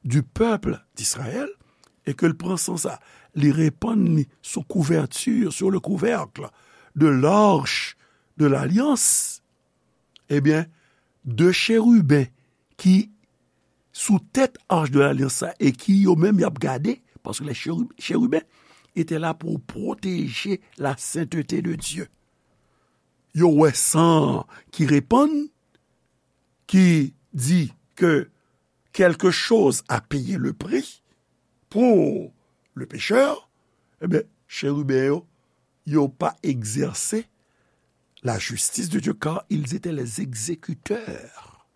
du peuple d'Israël, e ke l pran san sa, li repann li sou kouvèti, sur le couvercle de l'arche de l'alliance, ebyen, de cheriben ki sou tèt arche de l'alliance sa e ki yo menm y ap gade, paske les chérubins étaient là pour protéger la sainteté de Dieu. Yo wè san ki repann, ki di ke quelque chose a payé le prix pour le pécheur, ebyen, cheriben yo, yo pa egzèse la justice de Dieu, car ils étaient les exécuteurs,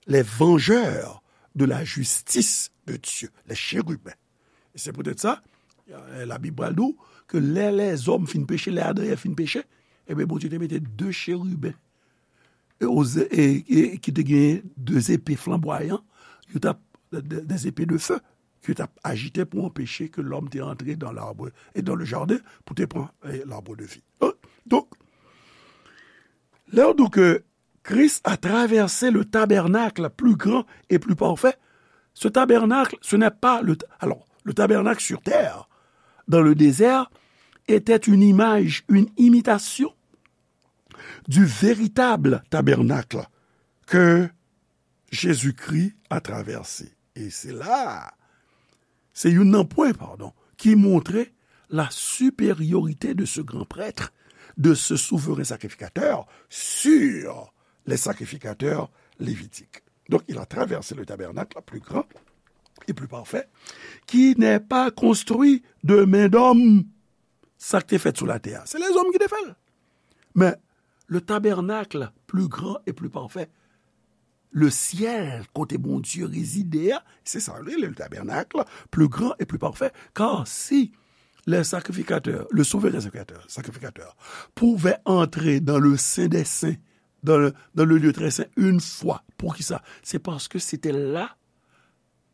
les vengeurs de la justice de Dieu, les chérubins. E se poutèt sa, euh, Labib pral di w ke lè lèzòm fin peche, lè Adan e Èv fin peche, ebyen, Bondye te mete de cheriben e, e, e ki te genyen de zepe flanbwayan, yo t ap, de, de zepe de fe, ki t ap ajite pou anpeche ke lòm te antre dans l'arbre et dans le jardin, pou te pran, eh, l'arbre de vie. Hein? Donk, lè w di ke Christ a traversé le tabernacle plus grand et plus parfait, ce tabernacle, ce n'est pas le, alors, le tabernacle sur terre, dans le désert, était une image, une imitation du véritable tabernacle que Jésus-Christ a traversé. E se la, se youn nan pwen, padon, ki montre la supériorité de ce grand prêtre, de ce souverain sacrificateur sur les sacrificateurs lévitiques. Donc, il a traversé le tabernacle plus grand et plus parfait, qui n'est pas construit de main d'homme. Sa k te fèt sou latè a, se lèzòm ki te fè l. Men, le tabernacle plus grand et plus parfait, le ciel, kote Bondye rezide a, se sa yo rele le tabernacle plus grand et plus parfait, car si les sacrificateurs, le souverain sacrificateur, sacrificateur, pouvait entrer dans le saint des saints, dans le, dans le lieu très saint, une fois. Poukisa? C'est parce que c'était là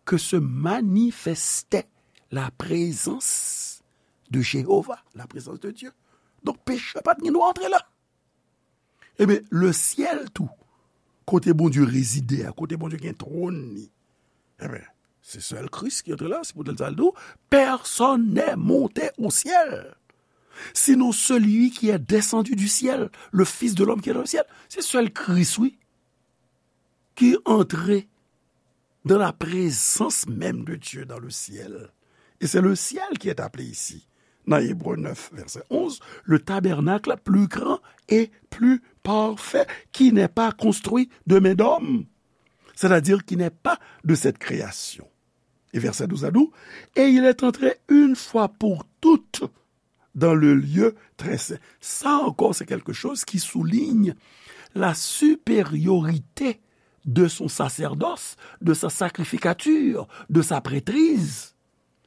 que se manifestait la présence de Jéhovah, la présence de Dieu. Donk, pechè pa t gen dwa antre la. Ebyen, le ciel tou, kote Bondye rezide a, kote Bondye gen twòn li, ebyen, se sèl Kris ki antre la, se poutèt sa l di w, personne n'est monté au ciel, sinon celui qui est descendu du ciel, le Fils de l'homme qui est dans le ciel. Se sèl Kris, wi, ki antre dans la présence même de Dieu dans le ciel. Et c'est le ciel qui est appelé ici, dans Hébreux neuf, verset onze, le tabernacle plus grand et plus parfait, qui n'est pas construit de main d'homme, c'est-à-dire qui n'est pas de cette création. Et verset douze à douze, et il est entré une fois pour toutes dans le lieu très saint. Ça encore, c'est quelque chose qui souligne la supériorité de son sacerdoce, de sa sacrificature, de sa prêtrise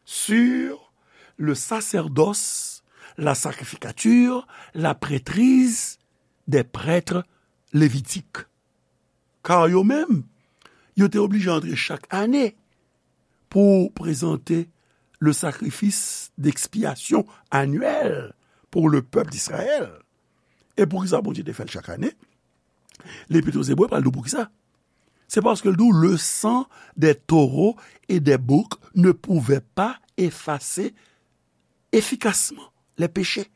sur le sacerdoce, la sacrificature, la prêtrise des prêtres lévitiques. Kar yo menm, yo te oblije antre chak ane pou prezante le sacrifice d'expiation annuel pour le peuple d'Israël. E poukisa Bondye te fè l chak ane? Lepit aux Hébreux pral di w poukisa. C'est parce que le sang des taureaux et des boucs ne pouvait pas effacer efficacement les péchés.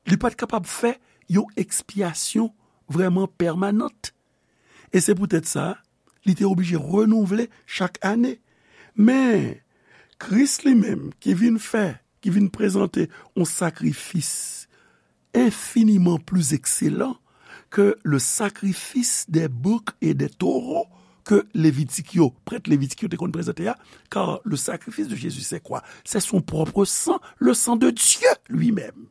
Li pa t kapab fè yon ekspyasyon vrèman pèmanant. E se poutèt sa, li te oblije renouvle chak ane. Men, Kris li menm, ki vin fè, ki vin prezante yon sakrifis enfiniman pli ekselan ke le sacrifice des boucs et des taureaux ke Levitik yo, prèt Levitik yo te konn prezante a, car le sacrifice de Jésus, c'est quoi? C'est son propre sang, le sang de Dieu lui-même.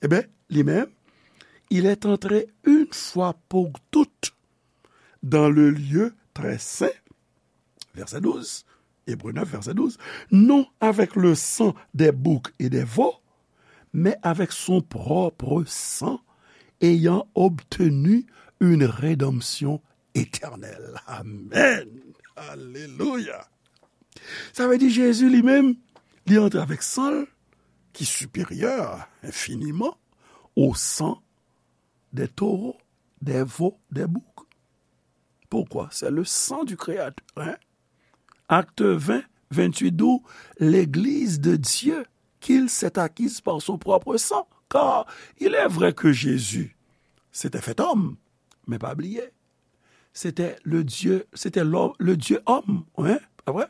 Eben, li menm, il est entré une fois pour toutes dans le lieu très saint, verset douze, Hébreux neuf, verset douze, non avec le sang des boucs et des veaux, mais avec son propre sang, ayant obtenu une rédemption éternelle. Amen. Alelouya! Sa vle di Jezi li menm, li antre avèk san l ki siperyè enfiniman au sang des taureaux, des veaux, des boucs. Pourquoi? C'est le sang du Créateur, hein? Acte vingt, vingt-huit, d'où l'Église de Dieu qu'il s'est acquise par son propre sang. Car il est vrai que Jésus s'était fait homme, mais pas oublier, c'était le Dieu, c'était l'homme, le Dieu homme, hein? Après,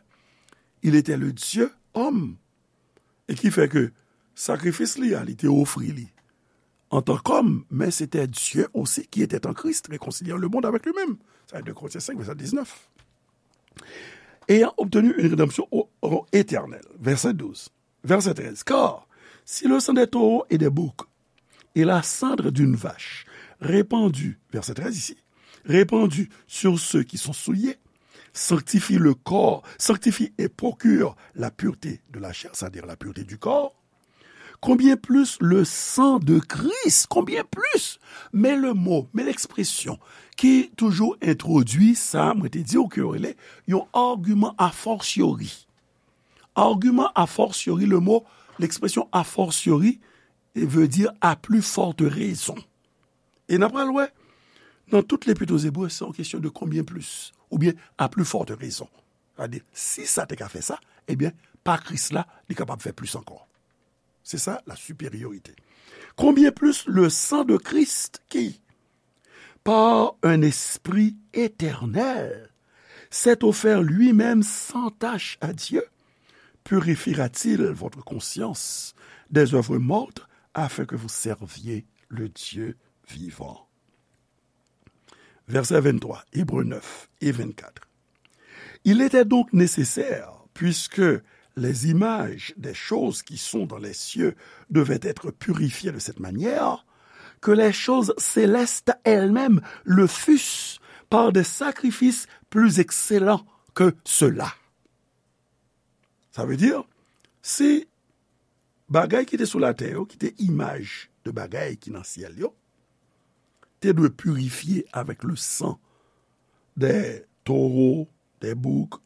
il était le Dieu homme. E ki fè ke sakrifis li a, li te ofri li antan kòm, men se te Dieu aussi qui était en Christ, réconciliant le monde avec lui-même. Sa, deux Corinthiens cinq, verset dix-neuf. Ayant obtenu une rédemption au, au éternel. Verset douze. Verset treize. Car si le sang des taureaux et des boucs et la cendre d'une vache répandue, verset treize ici, répandue sur ceux qui sont souillés, sanctifie le corps, sanctifie et procure la pureté de la chair, c'est-à-dire la pureté du corps, combien plus le sang de Christ, combien plus, men le mo, men l'expression ki toujou entwodui sa, mwen te di w ke yo rele yon argument a fortiori. Argument a fortiori, le mot, l'expression a fortiori, veut dire à plus forte raison. E n ap pral wè, nan tout Lepit aux Hébreux, se yon kesyon de combien plus, oubyen à plus forte raison. Sa vle di, si sa te ka fè sa, ebyen, pa Kris la, li kapab fè plis ankò. Se sa, la supériorité. Combien plus le sang de Christ qui, par un esprit éternel, s'est offert lui-même sans tache à Dieu, purifiera-t-il votre conscience des œuvres mortes afin que vous serviez le Dieu vivant? Verset vingt-trois, Hébreux neuf et vingt-quatre. Il était donc nécessaire, puisque les images des choses qui sont dans les cieux devaient être purifiées de cette manière, que les choses célestes elles-mêmes le fussent par des sacrifices plus excellents que ceux-là. Sa vle di, si bagay ki te sou latè yo, ki te imaj de bagay ki nan syèl yo, te dwe pirifye avec le sang des taureaux, des boucs,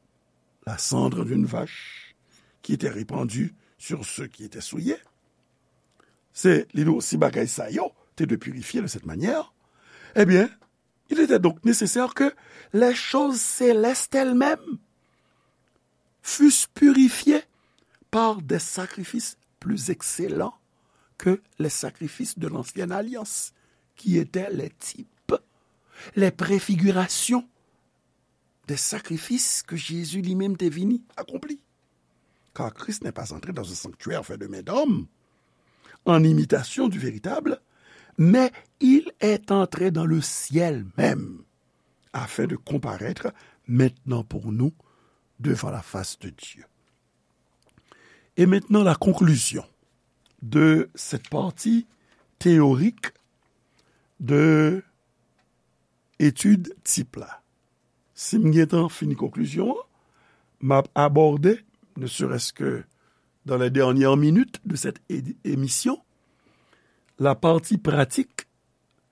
la cendre d'une vache, qui était répandue sur ceux qui étaient souillés. Se, li di w, si bagay sa yo te dwe pirifye de cette manière, eh bien, il était donc nécessaire que les choses célestes elles-mêmes fussent purifiées par des sacrifices plus excellents que les sacrifices de l'ancienne alliance, qui étaient les types, les préfigurations des sacrifices que Jésus lui-même te vini accompli. Car Christ n'est pas entré dans un sanctuaire fait de main d'homme, en imitation du véritable, mais il est entré dans le ciel même, afin de comparaître maintenant pour nous devant la face de Dieu. Et maintenant, la conclusion de cette partie théorique de étude type la. Si m gentan fini konklizyon an, m ap abòde, ne serait-ce que dans les dernières minutes de cette é-, émission, la partie pratique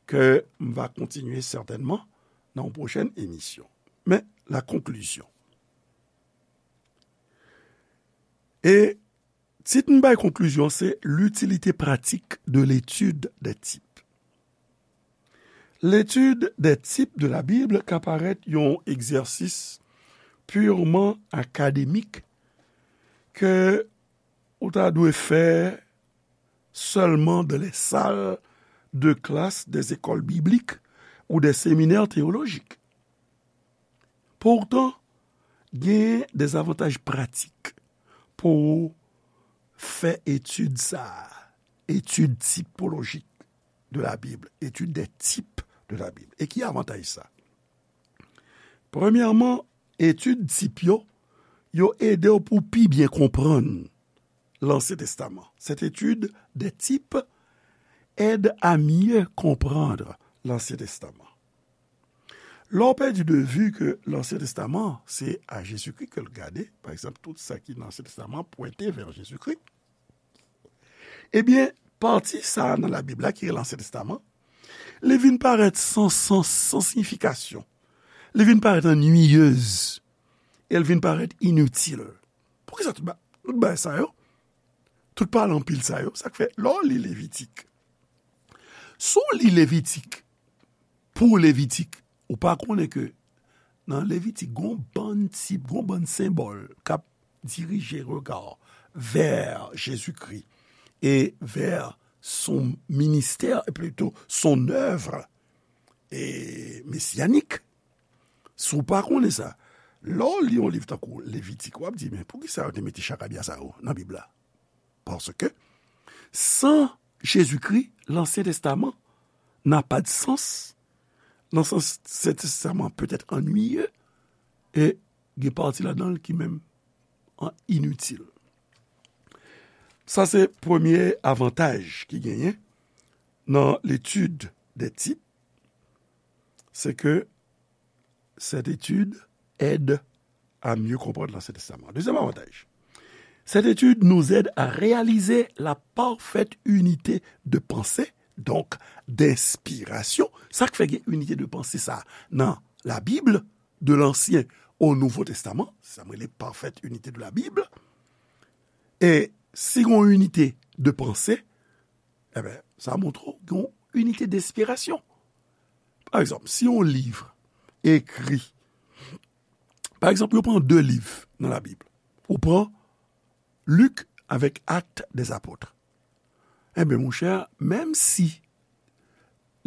que m va continuer certainement dans une prochaine émission. Mais la conclusion. Et tit m bay konklizyon se l'utilité pratique de l'étude des types. L'étude des types de la Bible ka parèt yon egzèsis purement académique ke ou ta dwe fè seulement dans les salles de classe des écoles bibliques ou des séminaires théologiques. Pourtant, gen des avantages pratiques pou fè etid sa a, étude typologique de la Bible, étude des types de la Bible. E ki avantaj sa? Premyèman, etid tip yo, yo ede w pou pi byen konprann Lansyen Testaman. Cette étude des types aide à mieux comprendre l'Ancien Testament. Lè w pèdi de vi ke Lansyen Testaman, se a Jezikri ke l gade, pa egzanp, tout sa ki nan Ansyen Testaman pwente vè Jezikri, ebyen, pati sa a nan Labib la ki rele Ansyen Testaman, li vin parèt san sans, san siyifikasyon. Li vin parèt anniyez. e l vin parèt initil. Poukisa tout ba-, tout bagay sa yo, tout pale anpil sa yo, sa k fè, lè w li Levitik, si w li Levitik, pou Levitik, ou pa konnen ke nan Levitik, gon bann tip, gon bann senbòl k ap dirije rega w vè Jezikri e vè son ministè, e plito son œuvre e mesyanik. Si w pa konnen sa, lè w li yon liv tankou Levitik, w ap di, "Men poukisa yo te mete chakabya sa yo nan Bib la?" Paske san Jezikri, Lansyen Testaman n'a pas de sens. Nan sans, Lansyen Testaman peut être ennuyeux, e gen pati ladan l ki menm an initil. Sa se premye avantaj ki genyen nan l'étude des types, c'est que cette étude aide à mieux comprendre l'Ancien Testament. Deuxième avantage, cette étude nous aide à réaliser la parfaite unité de pensée, donc d'inspiration. Sa k fè gen inite de panse sa nan Labib, de l'Ancien au Nouveau Testament, sa m rele parfaite unité de la Bible. E si gen yon inite de panse, enben, sa montre w gen yon inite de enspirasyon. Pa egzanp, si yon liv ekri, pa egzanp, yo pran de liv nan Labib, ou pran Lik avèk Actes des Apôtres. Enben, monchè, menm si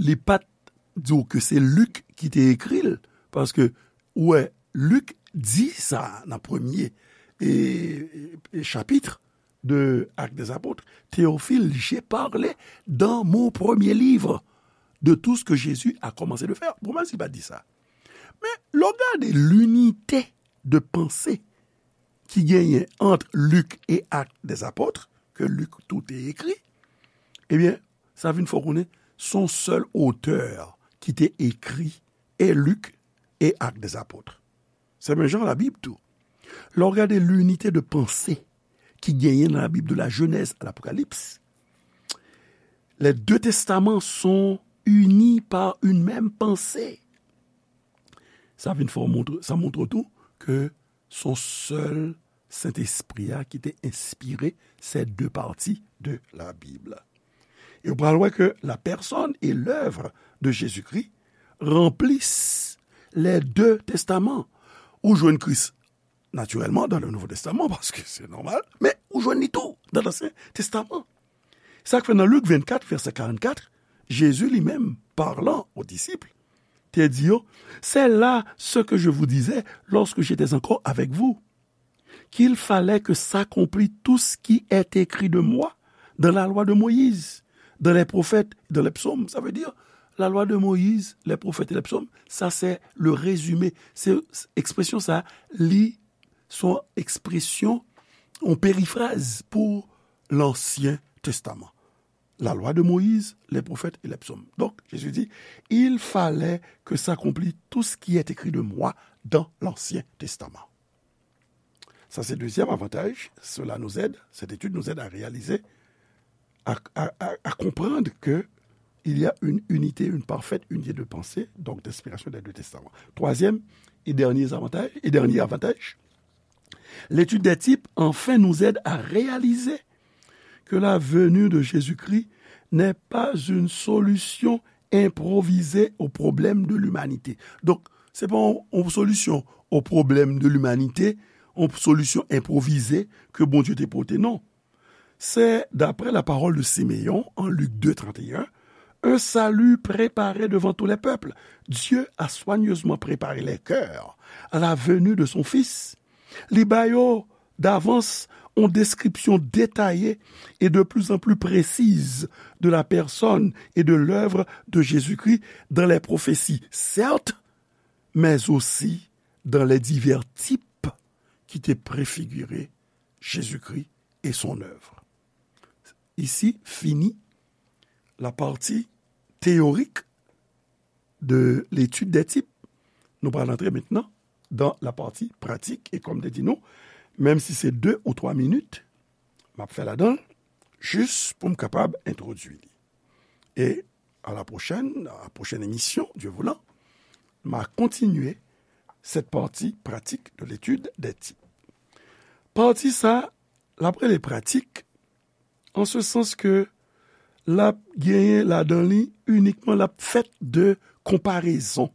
li pa t di w ke se Lik ki te ekri l, paske, ou wè, Lik di sa nan premye e, e, e chapit de Actes des Apôtres, Théophile, j'ai parlé dans mon premier livre de tout ce que Jésus a commencé de faire. Bon, menm si l pa t di sa. Men, lè w gade linite de panse ki genyen ant Lik e Actes des Apôtres, ke Lik tou te ekri, ebyen, sa vin fè w konnen se yon sèl otè ki te ekri e Lik e Actes des Apôtres. Se menm jan Labib tou. Lè w gade linite de panse ki genyen nan Labib, de la Genèse à l'Apocalypse, les deux testaments sont unis par une même pensée. Sa vin fè w montre, sa montre tou ke se yon sèl Sentespri a ki te enspire ces deux parties de la Bible. E w pral wè ke la personne et l'œuvre de Jésus-Christ remplissent les deux testaments. Ou jwenn Kris, natirèlman, dans le Nouveau Testament, paske se nòmal, men ou jwenn li tou dans l'Ancien Testament. Sa k fè nan Lik vennkat, vèsè karannkat, Jezi li menm, parlant aux disciples, te di yo, c'est là ce que je vous disais lorsque j'étais encore avec vous, qu'il fallait que s'accomplit tout ce qui est écrit de moi dans la loi de Moïse, dans les prophètes, dans les psaumes. Ça veut dire, la loi de Moïse, les prophètes et les psaumes, ça c'est le résumé. Se ekspresyon sa, li se yon ekspresyon, yon perifraz pou l'Ancien Testament. La loi de Moïse, les prophètes et les psaumes. Donc, Jésus dit, il fallait que s'accomplisse tout ce qui est écrit de moi dans l'Ancien Testament. Ça, c'est le deuxième avantage. Cela nous aide, cette étude nous aide à réaliser, à, à, à, à comprendre que il y a une unité, une parfaite unité de pensée, donc d'inspiration des deux testaments. Troisième et dernier avantage, et dernier avantage, l'étude des types, enfin, nous aide à réaliser que la venue de Jésus-Christ n'est pas une solution improvisée au problème de l'humanité. Donk, se pa yon, yon solisyon o pwoblèm de limanite, yon solisyon enpwovize ke Bondye te pote, non. C'est, d'après la parole de Siméon en Luc deux trente et un, un salut préparé devant tous les peuples. Dieu a soigneusement préparé les cœurs à la venue de son Fils. Li ba yo davans yon deskripsyon detaye et de plus en plus précise de la personne et de l'œuvre de Jésus-Christ dans les prophéties, certes, mais aussi dans les divers types qui te préfiguraient Jésus-Christ et son œuvre. Ici finit la partie théorique de l'étude des types. Nou pral antre mentnan dans la partie pratique. E kòm te di nou, menm si se de ou twa minit, m ap fè ladan l, jis pou m kapab entwodui li. E à la prochaine, à la prochaine émission, Dieu voulant, m a kontinye cette partie pratique de l'étude des types. Pati sa, l ap rele pratik, an se sans ke l ap genyen ladan li inikman, l ap fèt de konparezon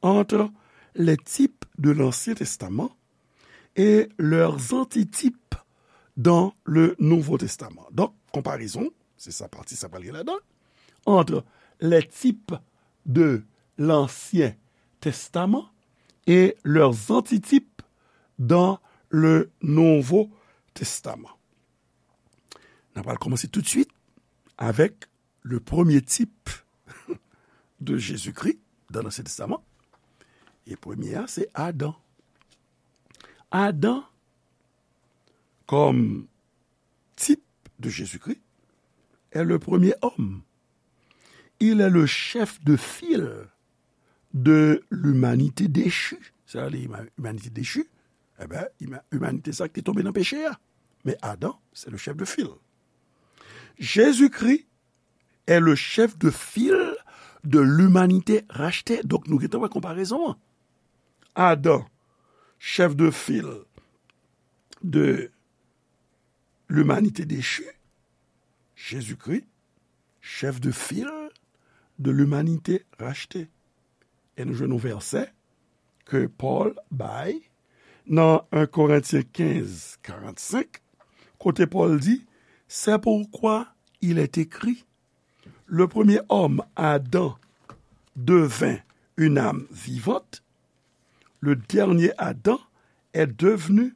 entre les types de l'Ancien Testament et leurs antitypes dans le Nouveau Testament. Donk, konparezon, se sa pati sa pral gen ladan, entre les types de l'Ancien Testament et leurs antitypes dans le Nouveau Testament. N ap al kòmanse toutswit avèk le premier type de Jésus-Christ dans l'Ancien Testament. E premye a, se Adan. Adan, comme type de Jésus-Christ, est le premier homme. Il est le chef de file de l'humanité déchue. Sa vle di, imanite dechi, e ben, imanite sa ki te tonbe nan peche a. Men Adan, se le chef de file. Jésus-Christ est le chef de file de l'humanité rachetée. Donk, nou gentan wè konparezon an. Adan, chef de file de l'humanité déchue, Jésus-Christ, chef de file de l'humanité rachetée. E nou jwenn yon vèsè ke Pòl bay nan en Korentyen kenz karannsenk, kote Pòl di, c'est pourquoi il est écrit, le premier homme, Adam, devint une âme vivante, le dernier Adam est devenu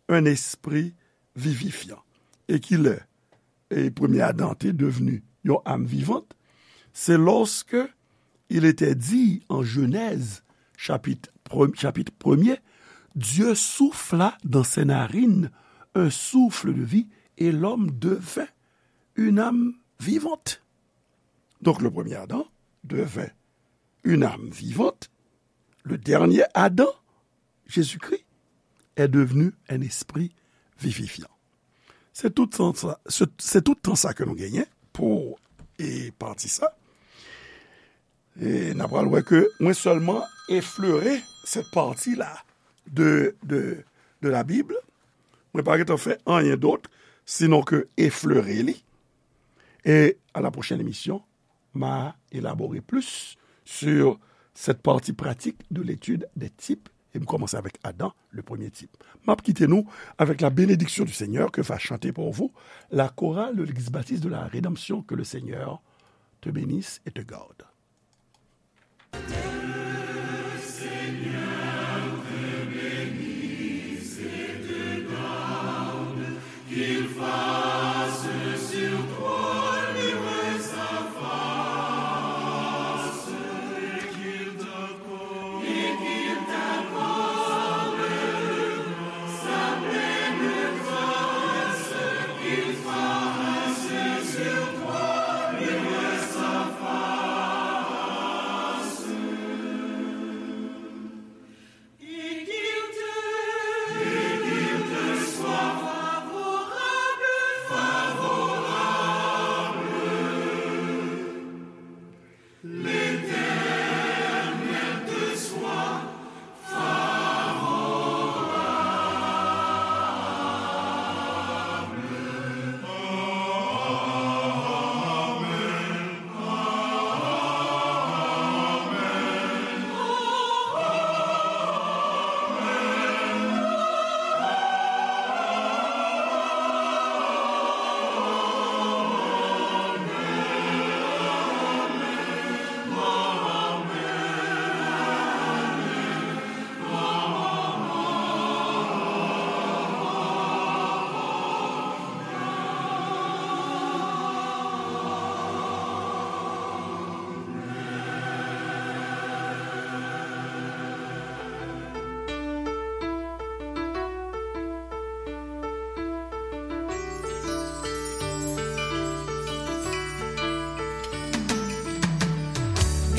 un esprit vivifiant. E ki lè, e premye Adan te devni yon âme vivante, c'est lorsque il était dit en Genèse, chapitre premier, chapitre premier, Dieu souffla dans ses narines un souffle de vie et l'homme devint une âme vivante. Donc le premier Adam devint une âme vivante. Le dernier Adam, Jésus-Christ, est devenu un esprit vivifiant. Se tout tan sa, se, se tout tan sa ke nou genyen pou, e, pati sa. E n a pral wè ke mwen sèlman eflere cette partie-là de, de, de la Bible. Mwen pa gentan fè anyen dòt, sinon ke eflere li. E à la prochaine émission, m'a élaboré plus sur cette partie pratique de l'étude des types. E m kòmanse avèk Adan, le premier type. M ap kite nou avec la bénédiction du Seigneur que va chanter pour vous la chorale de l'Église baptiste de la Rédemption. Que le Seigneur te bénisse et te garde.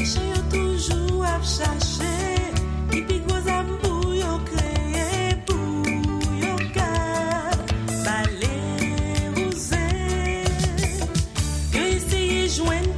Mechan yo toujou ap chache ki pi gwo zam pou yo kreye, pou yo ka bale wouze. Yo eseye jwenn